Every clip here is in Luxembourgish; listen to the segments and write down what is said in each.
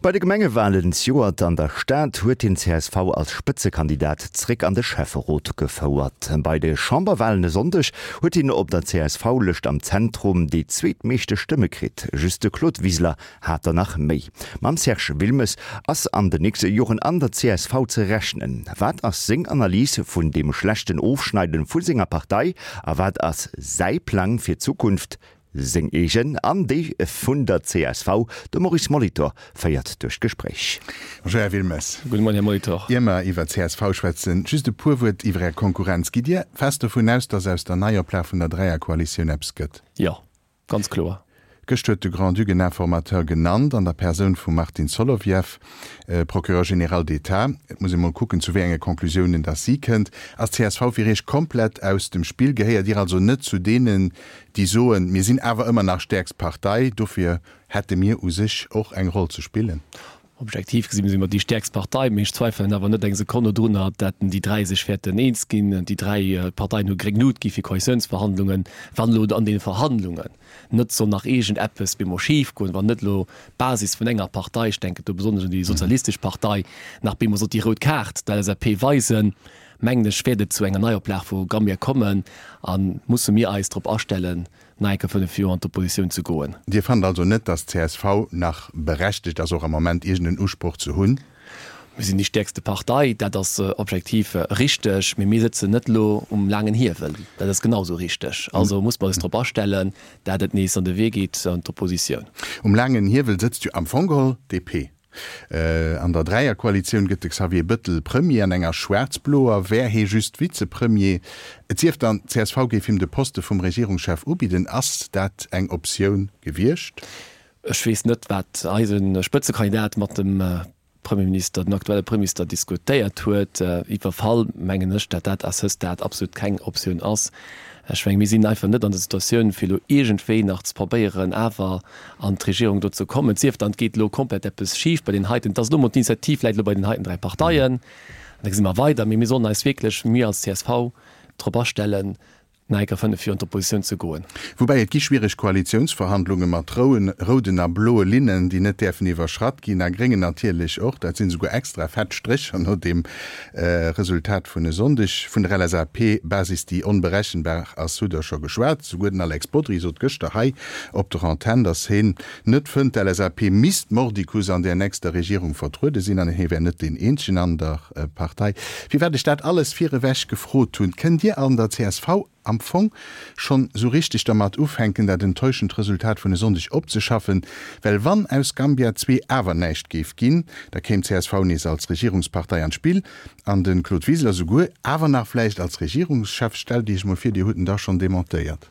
Bei de Gemengewalen zejoert an der Stad huet hien csv als Spëtzekandidat zréck an de Schäfferot gefouert. Bei de Chamberwalen e Sonndeg huet hien op der CSV-Lëscht am Zentrum déi zweetmeeschte Stëmme kritt, just de Claude Wiseler hat der nach méi. Mam Serge Wilmes ass an den nächste Joren an der csv ze rechnen. Wat ass seng Analys vun deem schlechten Ofschneiden vu senger Partei a wat ass säi Plang fir d'Zukunft? Seng eegen an déi vun der csv. De Maurice Molitor féiert duerch d'Gespréich. Bonjour Här Wilmes. Gudde Moien Här Molitor. Ier mer iwwer csv schwätzen, just e puer Wuert iwwer Är Konkurrenz. Gitt Dir fest dovun aus, datt aus der Neioplag vun der Dräierkoalitioun eppes gëtt? Jo, ganz kloer. Gëscht huet de Grand-Duc en Informateur genannt an der Persoun vum Martin Solovieff, Procureur général d'État. Et muss ee mol kucken, zu wéi enge Conclusiounen datt si kënnt. Ass csv fir Iech komplett aus dem Spill? Gehéiert Dir also net zu deenen, déi soen, mir sinn awer ëmmer nach stäerkst Partei, dofir hätte mir u sech och eng Roll ze spillen? Objektiv gesi si mer déi stäerkst Partei, mee ech zweifelen awer net eng Sekonn dodrunner, datt déi 3 sech wäerten eens ginn. Déi 3 Parteien hu gréng Lut gi fir Koalitiounsverhandlungen. Wann elo an deene Verhandlungen net soll nach iergend eppes bemol schif goen, wann net elo d'Basis vun enger Partei, ech denken do besonnesch un déi sozialistesch Partei, nach bemol sollt déi rout Kaart der LSAP weisen, mengen ech, wäert et zu enger Neioplag vu Gambia kommen a musse mir eis drop astellen, nach eng Kéier 5 Joer an d'Oppositioun ze goen. Dir fannt also net, datt csv nach berechtegt ass, och am Moment iergend en Usproch ze hunn? Mir sinn déi stäerkste Partei, dat ass objektiv richteg, mee mir sëtzen net elo um laangen Hiewel, dat ass genau esou richteg. Also muss mer eis drop astellen, dat et nees an de Wee geet an d'Oppositioun. Um laangen Hiewel sëtzt jo am Fong geholl d'DP. An der Dräierkoalitioun gëtt de Xavier Bëttel Premier, an enger schwaarz-bloer wär hee just Vizepremier. Et sief dann, d'CSV géif him de Poste vum Regierungschef ubidden. Ass dat eng Optioun gewiescht? Ech weess net, wat eise Spëtzekandidat mat dem Premierminister, den aktuelle Premierminister diskutéiert huet. Iwwer Fall mengen ech, dat dat à ce stade absolut keng Optioun ass. Ech mengen, mir sinn einfach net an der Situatioun, fir elo iergendwéi nach ze probéieren, awer an d'Regierung do ze kommen. Et sief dann, et geet elo komplett eppes schif bei deenen heiten. Et ass elo emol, d'Initiativ läit elo bei den heiten 3 Parteien. An da gesi mer weider. Mee mir sollen eis wierklech, mir als csv, drop astellen, nach eng Kéier 5 Joer an d'Oppositioun ze goen. Woubäi et gi schwiereg Koalitiounsverhandlunge mat rouden a bloe Linnen, déi net däerfen iwwerschratt ginn, a gréngen natierlech och. Dat sinn esouguer extra fett Strécher no deem Resultat vun e Sonndeg. Vun der LSAP-Basis, déi onberechenbar ass, hutt Der scho geschwat. Souguer den Alex Bodry sot gëschter hei op der Antenn, datt hien net fënnt, d'LSAP misst mordicus an där nächster Regierung vertruede sinn an hie wär net deen eenzegen an der Partei. Firwat ech dat alles virewech gefrot hunn, Kënnt Dir an der csv am Fong schonn esou richteg dermat ufänken, dat enttäuschend Resultat vun e Sonndeg opzeschaffen? Well wann aus Gambia 2 awer näischt géif ginn, da kéim csv nees als Regierungspartei an d'Spill an de Claude Wiseler souguer awer nach vläicht als Regierungschef. Stellt Iech emol vir, Dir hutt en da schonn demontéiert.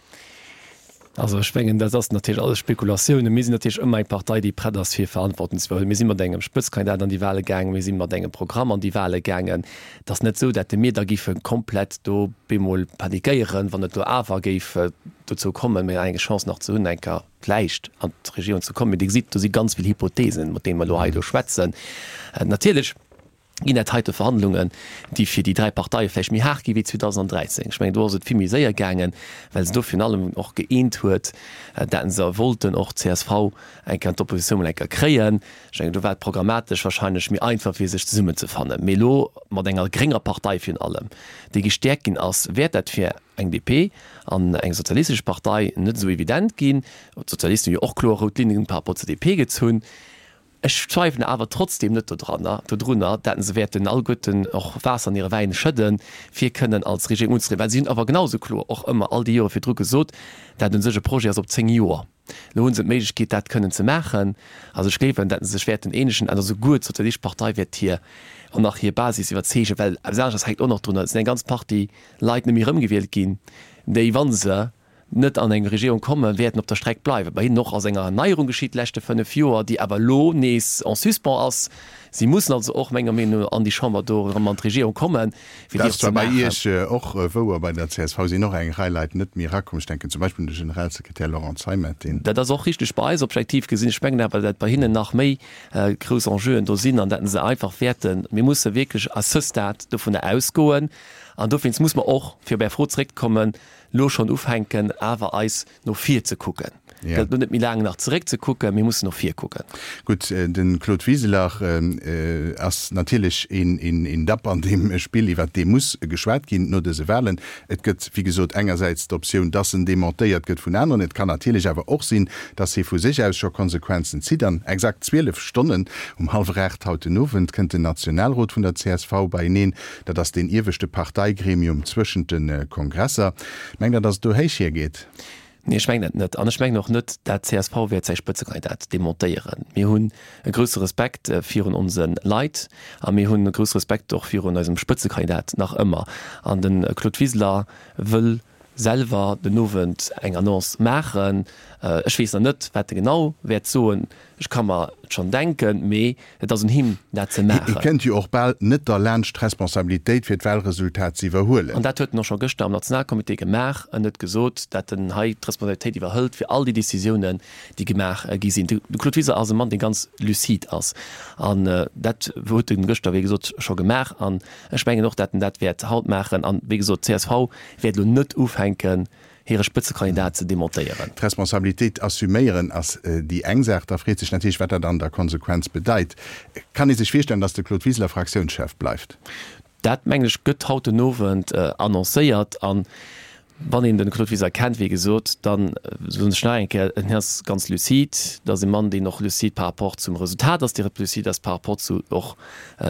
Also ech mengen, dat ass natierlech alles Spekulatiounen. Mir sinn natierlech ëmmer eng Partei, déi prett ass, fir Verantwortung ze iwwerhuelen. Mir si mat engem Spëtzkandidat an déi Wahle gaangen, mir si mat engem Programm an déi Wahle gaangen. Et ass net esou, datt mir da géife komplett do bemol panikéieren, wann et elo awer géif dozou kommen, mir eng Chance nach ze hunn, eng Kéier vläicht an d'Regierung ze kommen. Mee Dir gesitt, do si ganz vill Hypotheesen, mat deene mer elo hei elo schwätzen. Natierlech ginn dat heite Verhandlungen, déi fir déi 3 Parteie vläicht méi haart gi wéi 2013. Ech mengen, do ass et vill méi séier gaangen, well se do virun allem och gëeent huet, dat se wollten och csv eng Kéier an d'Oppositioun mol eng Kéier kréien. Ech mengen, do war et programmatesch wahrscheinlech méi einfach, fir sech zesummenzefannen. Mee elo mat enger grénger Partei virun allem, déi gestäerkt ginn ass, wäert dat fir eng DP an eng sozialistesch Partei net esou evident ginn. D'Sozialisten hu jo och kloer rout Linnen par rapport zur DP gezunn. Ech zweifelen awer trotzdem net dodranner, dodrunner, dat se wäerten alleguerten och Waasser an hire Wäin schëdden, fir kënnen als Regierung unzetrieden, well si hunn awer genau esou kloer och ëmmer all déi Jore virdru gesot, dat u sech e Projet ass op 10 Joer. Elo hu se d'Méiglechkeet, dat kënnen ze maachen. Also ech gleewen, dat se sech wäerten eenegen an esouguer d'Sozialistesch Partei wäert hir och nach hir Basis iwwerzeegen, well eppes aneschters hänkt och nach drunner, et sinn eng ganz Partie Leit net méi erëmgewielt ginn, déi, wa se net an eng Regierung kommen, wäerten op der Streck bleiwen. Bei hinnen och ass eng Erneierung geschitt déi leschte 5 Joer, déi awer elo nees en suspens ass. Si mussen also och menger Meenung no an déi Chamber do erëm an d'Regierung kommen, fir déi och ze maachen. Dat ass zwar bei Iech och wouer, bei der csv sinn och eng Rei Leit net méi erakomm. Ech denken zum Beispill un de Generalsekretär Laurent Zeimet, deen. Dat ass och richteg bei eis, objektiv gesinn. Ech mengen awer, dat bei hinnen nach méi grouss Enjeuen do sinn an dat se einfach wäerten, mir musse wierklech à ce stade dovunner ausgoen an dowéinst muss mer och, fir op Är Fro zeréckzekommen, lo schonn ufänken awer eis no vir ze kucken. Gëllt elo net méi laang nach zeréck ze kucken, mir mussen och vir kucken. Gutt, de Claude Wiseler ass natierlech een Dapp an deem Spill, iwwert dee muss geschwat ginn no dëse Wahlen. Et gëtt, wéi gesot, engersäits d'Optioun, dass en dementéiert gëtt vun aneren. Et kann natierlech awer och sinn, dass hie vu sech aus scho Konsequenzen zitt. An exakt 12 Stonnen, um hallwer 8 haut den Owend, kënnt den Nationalrot vun der csv beieneen. Dat ass deen ieweschte Parteigremium zwëschent de Kongresser. Mengt Der, dass et do héich hiergeet? Nee, ech mengen dat net. An ech mengen och net, dat csv wäert säi Spëtzekandidat demontéieren. Mir hunn e grousse Respekt virun onse Leit a mir hunn e grousse Respekt och virun eisem Spëtzekandidat nach ëmmer. An de Claude Wiseler wëll selwer den Owend eng Annonce maachen. Ech weess nach net, wat e genau wäert soen. Ech ka mer et schonn denken, mee et ass un him, dat ze Hie maachen. kënnt jo och bal net derlaanscht, d'Responsabilitéit fir d'Wahlresultat ze iwwerhuelen. An dat huet en och scho gëschter am Nationalcomité gemaach. En huet gesot, dat en hei d'Responsabilitéit iwwerhëlt fir all déi Décisiounen, déi gemaach gi sinn. De Claude Wiseler ass e Mann, dee ganz lucide ass. An dat huet en gëschter, wéi gesot, scho gemaach. An ech mengen och, dat en dat wäert haut maachen. An, wéi gesot, d'CSV wäert elo net ufänken, hire Spëtzekandidat ze demontéieren. D'Responsabilitéit assuméieren ass déi eng Saach. Da freet sech natierlech, wat dat an der Konsequenz bedeit. Kann ee sech virstellen, datt de Claude Wiseler Fraktiounschef bleift? Dat, mengen ech, gëtt haut den Owend annoncéiert. An wann een de Claude Wiseler kennt, wéi gesot, da soen ech nach eng Kéier, en ass ganz lucide. Dat ass e Mann, deen och lucide par rapport zum Resultat ass, dee lucide ass par rapport zu och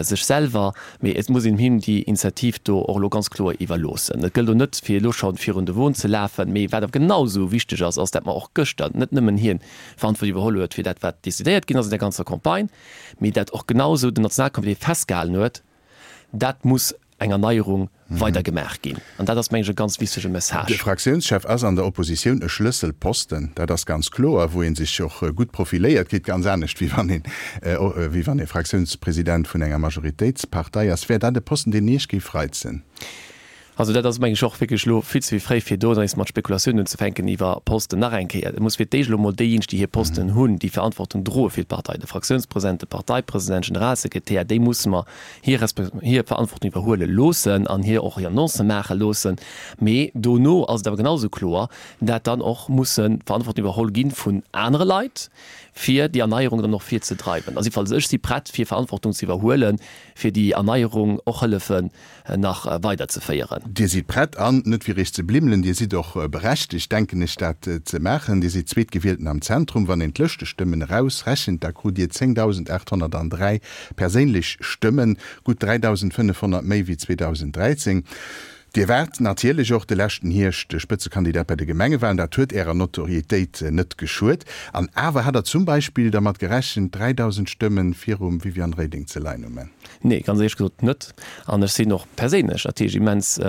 sech selwer, mee et muss een him déi Initiativ do och elo ganz kloer iwwerloossen. Et gëllt elo net, fir elo scho virun de Won ze lafen, mee wat awer genau esou wichteg ass, ass, dat mer och gëschter net nëmmen hien Verantwortung iwwerholl huet fir dat, wat decidéiert ginn ass an der ganzer Campagne, mee dat och genau esou den Nationalcomité festgehalen huet, dat muss eng Erneierung weider gemaach ginn. An dat ass, mengen ech, e ganz wichtege Message. De Fraktiounschef ass an der Oppositioun e Schlësselposten, dat ass ganz kloer, wou ee sech och gutt profiléiert kritt, ganz anescht wéi wann een, wéi wann ee Fraktiounspresident vun enger Majoritéitspartei ass. Wär dat e Posten, deen Iech géif reizen? Also dat ass, mengen ech, och wierklech elo vill ze fréi, fir do nees mat Spekulatiounen unzefänken iwwer Posten. Nach eng Kéier, et muss fir d'éischt elo emol déijéineg, déi hir Posten hunn, déi Verantwortung droe fir d'Partei, de Fraktiounspresident, de Parteipresident, Generalsekretär, déi musse mer hir hir Verantwortung iwwerhuele loossen an hir och hir Annoncë maache loossen. Mee dono ass et awer genau esou kloer, dat dann och musse Verantwortung iwwerholl gi vun anere Leit, fir déi Erneierung dann och virzedreiwen. Also jiddefalls ech si prett, fir Verantwortung ze iwwerhuelen, fir déi Erneierung och hëllefen nach weiderzeféieren. Dir sidd prett, an net fir Iech ze blimmelen, Dir sidd och berechtegt, denken ech, dat ze maachen. Dir sidd Zweetgewielten am Zentrum. Wann een d'Lëschtestëmmen erausrechent, da krut Dir 10.803 perséinlech Stëmmen, gutt 3.500 méi wéi 2013. Dir waart natierlech och de leschten Hierscht Spëtzekandidat bei de Gemengewalen. Dat huet Ärer Notorietéit net geschuet. An awer, hat Der zum Beispill dermat gerechent, 3.000 Stëmme virum Viviane Reding ze leien um Enn? Nee, ganz éierlech gesot net. An ech sinn och perséinlech natierlech immens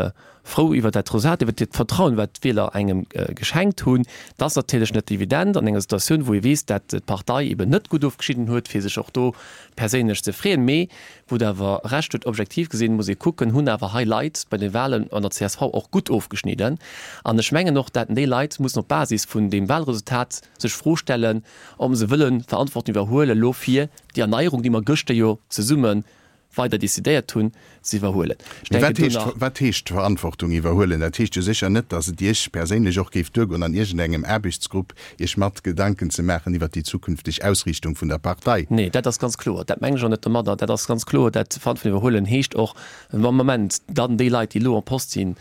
frou iwwer dat Resultat, iwwer dat Vertrauen, wat d'Wieler engem geschenkt hunn. Dat ass natierlech net evident an enger Situatioun, wou ee weess, dat d'Partei eben net gutt ofgeschnidden huet, fir sech och do perséinlech ze freeën. Mee wou Der awer Recht hutt, objektiv gesinn, muss ee kucken, hunn awer hei Leit bei de Wahlen an der csv och gutt ofgeschnidden. An ech mengen och, dat déi Leit mussen op Basis vun deem Wahlresultat sech d'Fro stellen, ob se wëlle Verantwortung iwwerhuelen elo fir déi Erneierung, déi mer gëschter jo zesumme weider decidéiert hunn, ze iwwerhuelen. Ech Mee wat denken do heescht, nach. wat heescht Verantwortung iwwerhuelen? Dat heescht jo sécher net, datt et Iech perséinlech och géif duergoen, an iergendengem Aarbechtsgrupp Iech mat Gedanken ze maachen iwwert déi zukünfteg Ausriichtung vun der Partei. Nee, dat ass ganz kloer. Dat mengen ech och net domadder. Dat ass ganz kloer. Dat Verantwortung iwwerhuelen heescht och, am Moment dann déi Leit, déi elo en poste sinn,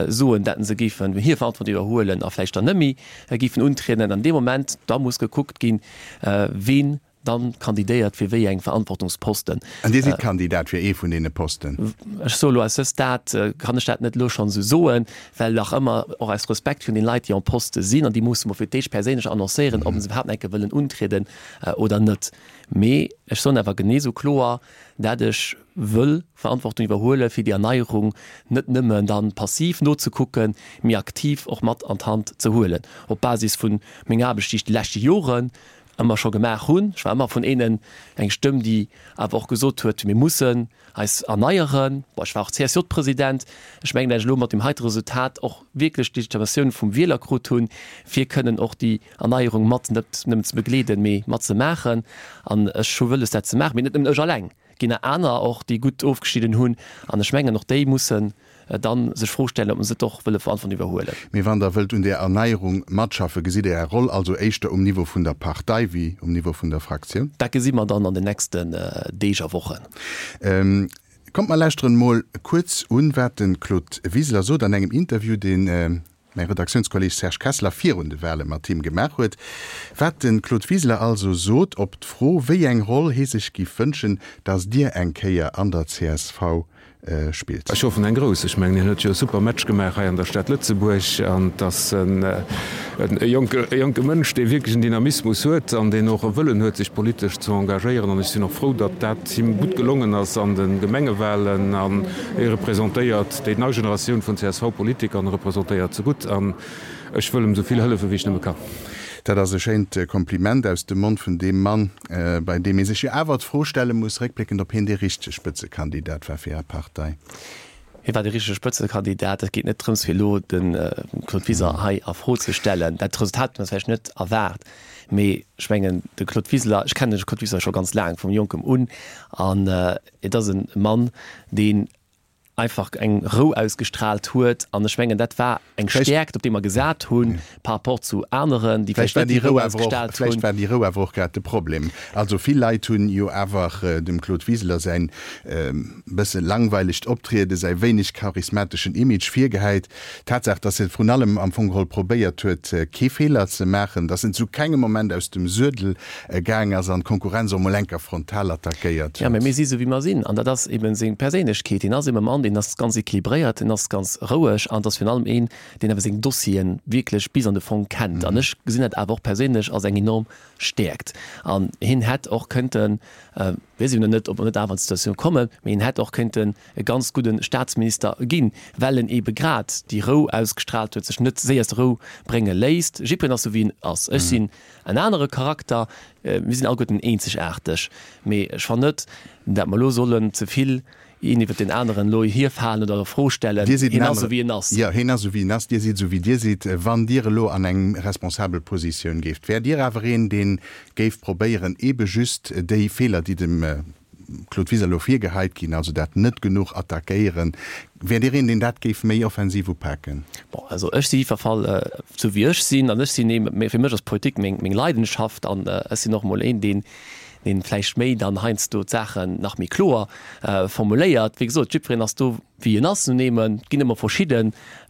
soen, datt se géifen hir Verantwortung iwwerhuelen a vläicht dann net méi géifen untrieden. An deem Moment da muss gekuckt ginn, ween Dann kandidéiert fir wéi eng Verantwortungsposten. An Dir sidd Kandidat fir ee vun deene Posten? Ech soe lo à ce stade kann ech dat net elo schonn esou soen, well nach ëmmer och aus Respekt virun den Leit, déi en poste sinn, an déi musse mer fir d'éischt perséinlech annoncéieren, ob se iwwerhaapt nach eng Kéier wëllen untrieden oder net. Mee ech soen awer genee esou kloer, dat ech wëll Verantwortung iwwerhuele fir déi Erneierung net nëmmen dann passiv nozekucken, mee aktiv och mat an d'Hand ze huelen, op Basis vu menger Aarbecht, déi ech déi leschte Joren ëmmer scho gemaach hunn. Ech war ëmmer vun eenen eng Stëmm, déi awer och gesot huet, mir mussen eis erneieren. Bon, ech war och CSJ-President. Ech mengen, dat ech elo mat deem heite Resultat och wierklech d'Legitimatioun vum Wieler krut hunn, fir kënnen och déi Erneierung mat net nëmmen ze begleeden, mee mat ze maachen. An ech hu wëlles, dat ze maachen, mee net nëmmen ech alleng. Et ginn nach aner och, déi gutt ofgeschnidden hunn. An ech mengen, och déi mussen. Dann sech Fro stellen, ob se net och wëlle Verantwortung iwwerhuelen. Mee wann Der wëllt un där Erneierung matschaffen, gesitt Der Är Roll also éischter um Niveau vun der Partei wéi um Niveau vun der Fraktioun? Dat gesi mer dann an den nächsten Deeg a Wochen. Kommt mer lauschteren mol kuerz un, wat de Claude Wiseler sot an engem Interview, deen mäi Redaktiounskolleg Serge Kessler virun de Wale mat him gemaach huet. Wat de Claude Wiseler also sot op d'Fro, wéi eng Roll hie sech giff wënschen, datt Dir eng Kéier an der csv spillt. Ech hoffen eng grouss. Ech mengen, hien huet jo e super Match gemaach hei an der Stad Lëtzebuerg an et ass e jonke Mënsch, dee wierklech en Dynamismus huet an deen och e Wëllen huet, sech politesch ze engagéieren. An ech sinn och frou, datt dat him gutt gelongen ass an de Gemengewalen an hie representéiert déi nei Generatioun vun CSV-Politiker an e representéiert se gutt an ech wëll em esou vill hëllefen, wéi ech nëmme kann. Dat ass e schéint Kompliment aus dem Mond vun deem Mann, bei deem ee sech jo awer d'Fro stelle muss, réckbléckend, ob hien dee richtege Spëtzekandidat war fir Är Partei. Hie war de richtege Spëtzekandidat. Et geet net drëms, fir elo de Claude Wiseler hei a Fro ze stellen. Dat Resultat huet mer vläicht net erwaart, mee ech mengen, de Claude Wiseler, ech kennen de Claude Wiseler scho ganz laang, vum Jonkem un, an et ass e Mann, deen einfach eng Rou ausgestrahlt huet an ech mengen dat war eng Stäerkt op déi mer gesat hunn par rapport zu aneren déi vläicht net déi Rou ausgestrahlt hunn. Vläicht war déi Rou awer och grad de Problem. Also vill Leit hunn jo awer dem Claude Wiseler säin bësse langweilegt Optrieden, säi wéineg charismateschen Image virgehäit. D'Tatsaach, datt e vrun allem am Fong geholl probéiert huet kee Feeler ze maachen, datt en zu kengem Moment aus dem Suedel gaang ass an d'Konkurrenz och mol enker frontal attackéiert huet. Jo, mä mir si sou wéi mer sinn an dat ass eben seng Perséinlechkeet. Hien ass eben e Mann, deen ass ganz équilibréiert, deen ass ganz roueg an et ass virun allem een, deen awer seng Dossieren wierklech bis an de Fong kennt. An ech gesinn dat awer och perséinlech als eng enorm Stäerkt. An hien hätt och kënnten, weess ech nach net, ob mer net awer an d'Situatioun kommen, mä hien hätt och kënnten e ganz gudde Staatsminister ginn, well en ebe grad déi Rou ausgestrahlt huet, sech net séier aus der Rou brénge léisst. Jiddwereen ass sou wéi en ass. Ech sinn En anere Charakter, mir sinn alleguerten eenzegaarteg, mee ech fannen net, dat mer elo sollen ze vill een iwwert deen aneren elo hierfalen oder a Fro stellen. Dir sidd en Hien ass esou wéi en ass. Jo, hien ass esou wéi en ass, Dir sidd esou wéi Dir sidd. Wann Dir elo an eng responsabel Positioun géift, wäert Dir awer een, dee géif probéieren, eebe just déi Feeler, déi dem Claude Wiseler elo virgeheit ginn, also dat net genuch attackéieren, Wäert Dir een, deen dat géif méi offensiv upaken? Bon, also ech si jiddwer Fall esou wéi ech sinn an ech sinn ee, fir mech ass Politik meng, meng Leidenschaft an ech sinn och emol een, deen, deen vläicht méi dann heiansdo d'Saachen nach méi kloer formuléiert. Wéi gesot, jiddwereen ass do wéi en ass nun eemol. Et ginn ëmmer verschidde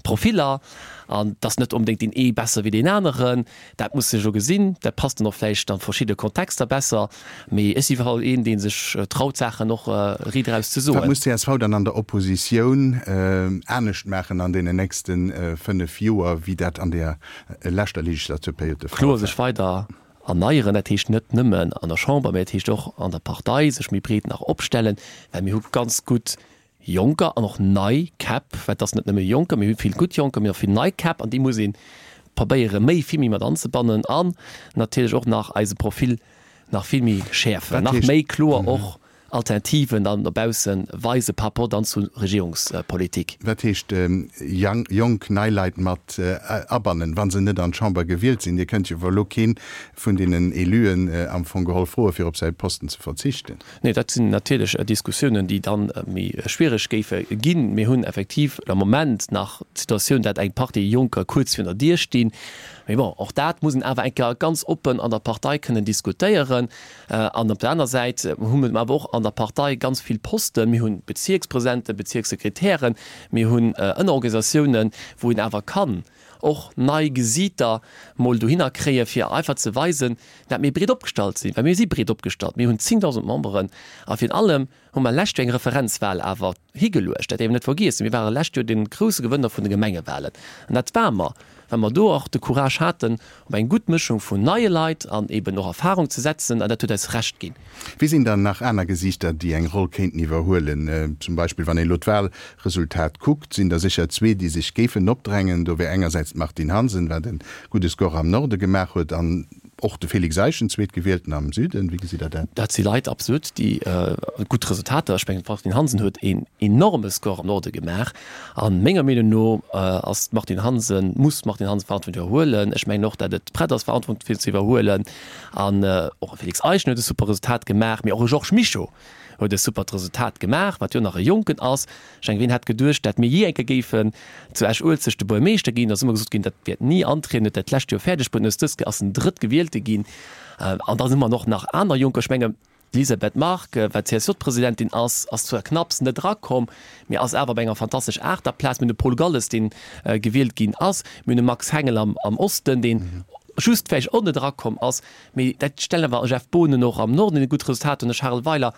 Profiller an et ass net onbedéngt deen ee besser wéi deen aneren. Dat muss sech elo gesinn. Dat passt dann och vläicht a verschidde Kontexter besser. Mee ech si iwwerall een, dee sech traut, Saachen och riit eraus ze soen. Wat muss csv dann an der Oppositioun anescht maachen an deenen nächste 5 Joer, wéi dat an der leschter Legislaturperiod de Fall war? Kloer sech weider erneieren. Dat heescht net nëmmen an der Chamber, mä dat heescht och an der Partei sech méi breet nach opstellen, well mir hu ganz gutt Jonker an och nei Käpp, well et ass net nëmme Jonker, mir hu vill gutt Jonker, mee och vill nei Käpp an déi muss ee probéiere méi, vill méi mat anzebannen an natierlech och nach eise Profil nach vill méi schäerfen, nach méi kloer och Alternativen dann no bausse weise par rapport dann zu Regierungspolitik. Wat heescht jonk, nei Leit mat abannen, wa se net an d'Chamber gewielt sinn? Dir kënnt jo elo kee vun deenen Éluen am Fong geholl froe fir op säi Posten ze verzichten. Nee, dat sinn natierlech Diskussiounen, déi da méi schwiereg géife ginn. Mir hunn effektiv am Moment nach d'Situatioun, dat eng Partie Jonker kuerz virun der Dier stinn. Mee bon, och dat muss een awer eng Kéier ganz oppen an der Partei kënnen diskutéieren. An op der aner Säit hu mir awer och an der Partei ganz vill Posten. Mir hu Bezierkspresidenten, Bezierkssekretären, mir hunn Ënnerorganisatiounen, wou een awer kann och nei Gesiiter mol dohinner kréie fir einfach ze weisen, dat mir breet opgestallt sinn, well mir si breet opgestallt, mir hunn 10.000 Memberen a virun allem hu mer lescht Joer eng Referenzwahl awer higeluecht, dat däerf een net vergiessen. Mir ware lescht Joer de grousse Gewënner vun de Gemengewahlen an dat ware mer, well mer do och de Courage haten, op eng gutt Mëschung vun neie Leit an eben och Erfahrung ze setzen an dat huet eis Recht ginn. Wie sinn dann nach aner Gesiichter, déi eng Roll kéinten iwwerhuelen? Zum Beispill wann een elo d'Wahlresultat kuckt, sinn der sécher zwee, déi sech géifen opdrängen. Do wär engersäits d'Martine Hansen, wat e gudde Score am Norde gemaach huet, an och de Félix Eischen, Zweetgewielten am Süden. Wéi gesitt Der dat? Dat si Leit, absolut, déi gutt Resultater, ech mengen d'Martine Hansen huet een enorme Score am Norde gemaach. A menger Meenung no ass d'Martine Hansen, muss d'Martine Hansen Verantwortung iwwerhuelen. Ech mengen och, datt et prett ass, Verantwortung ze iwwerhuelen. An och e Félix Eischen huet e super Resultat gemaach, mee och e Georges Mischo. Huet e supert Resultat gemaach, wat jo nach e Jonken ass. Ech mengen, wien hätt geduecht, dat mir jee eng Kéier géifen zu Esch-Uelzecht de Buergermeeschter ginn. Da ass ëmmer gesot ginn, dat wäert ni antrieden, huet dat d'lescht Joer fäerdeg bruet an hues dës Kéier ass en Drëttgewielte ginn. An dann hu mer och nach aner Jonker. Ech menge d'Elisabeth Margue, wat CSJ-Presidentin ass, ass zwar knapps net erakomm, mee ass awer op enger fantastesch Aachterplaz. Mir hunn de Paul Galles, deen gewielt ginn ass. Mir hunn de Max Hengel am Osten, deen just vläicht och net erakomm ass. Mee dat stellen awer Jeff Boonen och am Norden, deen e gutt Resultat huet, an de Charel Weiler.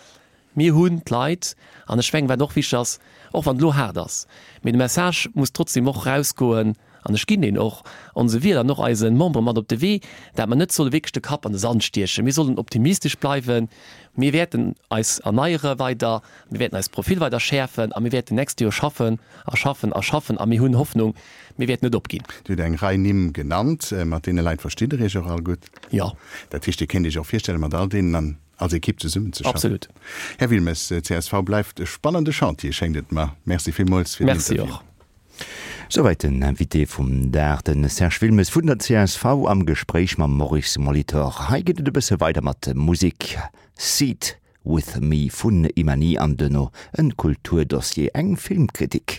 Mir hunn d'Leit, an ech mengen, wat och wichteg ass, och wann et elo haart ass, mee de Message muss trotzdem och erausgoen, an ech ginn deen och onse Wieler an och eise Membere mat op de Wee, dat mer net solle wierklech de Kapp an de Sand stiechen. Mir sollen optimistesch bleiwen. Mir wäerten eis erneiere weider, mir wäerten eist Profil weider schäerfen a mir wäerten d'nächst Joer schaffen a schaffen a schaffen a mir hunn Hoffnung, mir wäerten net opginn. Dir hutt eng Rei Nimm genannt. Mat deene Leit verstitt Der Iech och all gutt? Jo. Dat heescht, Dir kéint Iech och virstellen, mat all deenen an als Ekipp zesummen ze schaffen? Absolut. Här Wilmes, csv bleift e spannende Chantier, schéngt et mer. Merci villmools fir den Merci Interview. och. Souwäit den Invité vum Dag, de Serge Wilmes vun der csv am Gespréich mam Maurice Molitor. Hei geet et e bësse weider mat Musek, Seat With Me vun Imani an duerno en Kulturdossier, eng Filmkritik.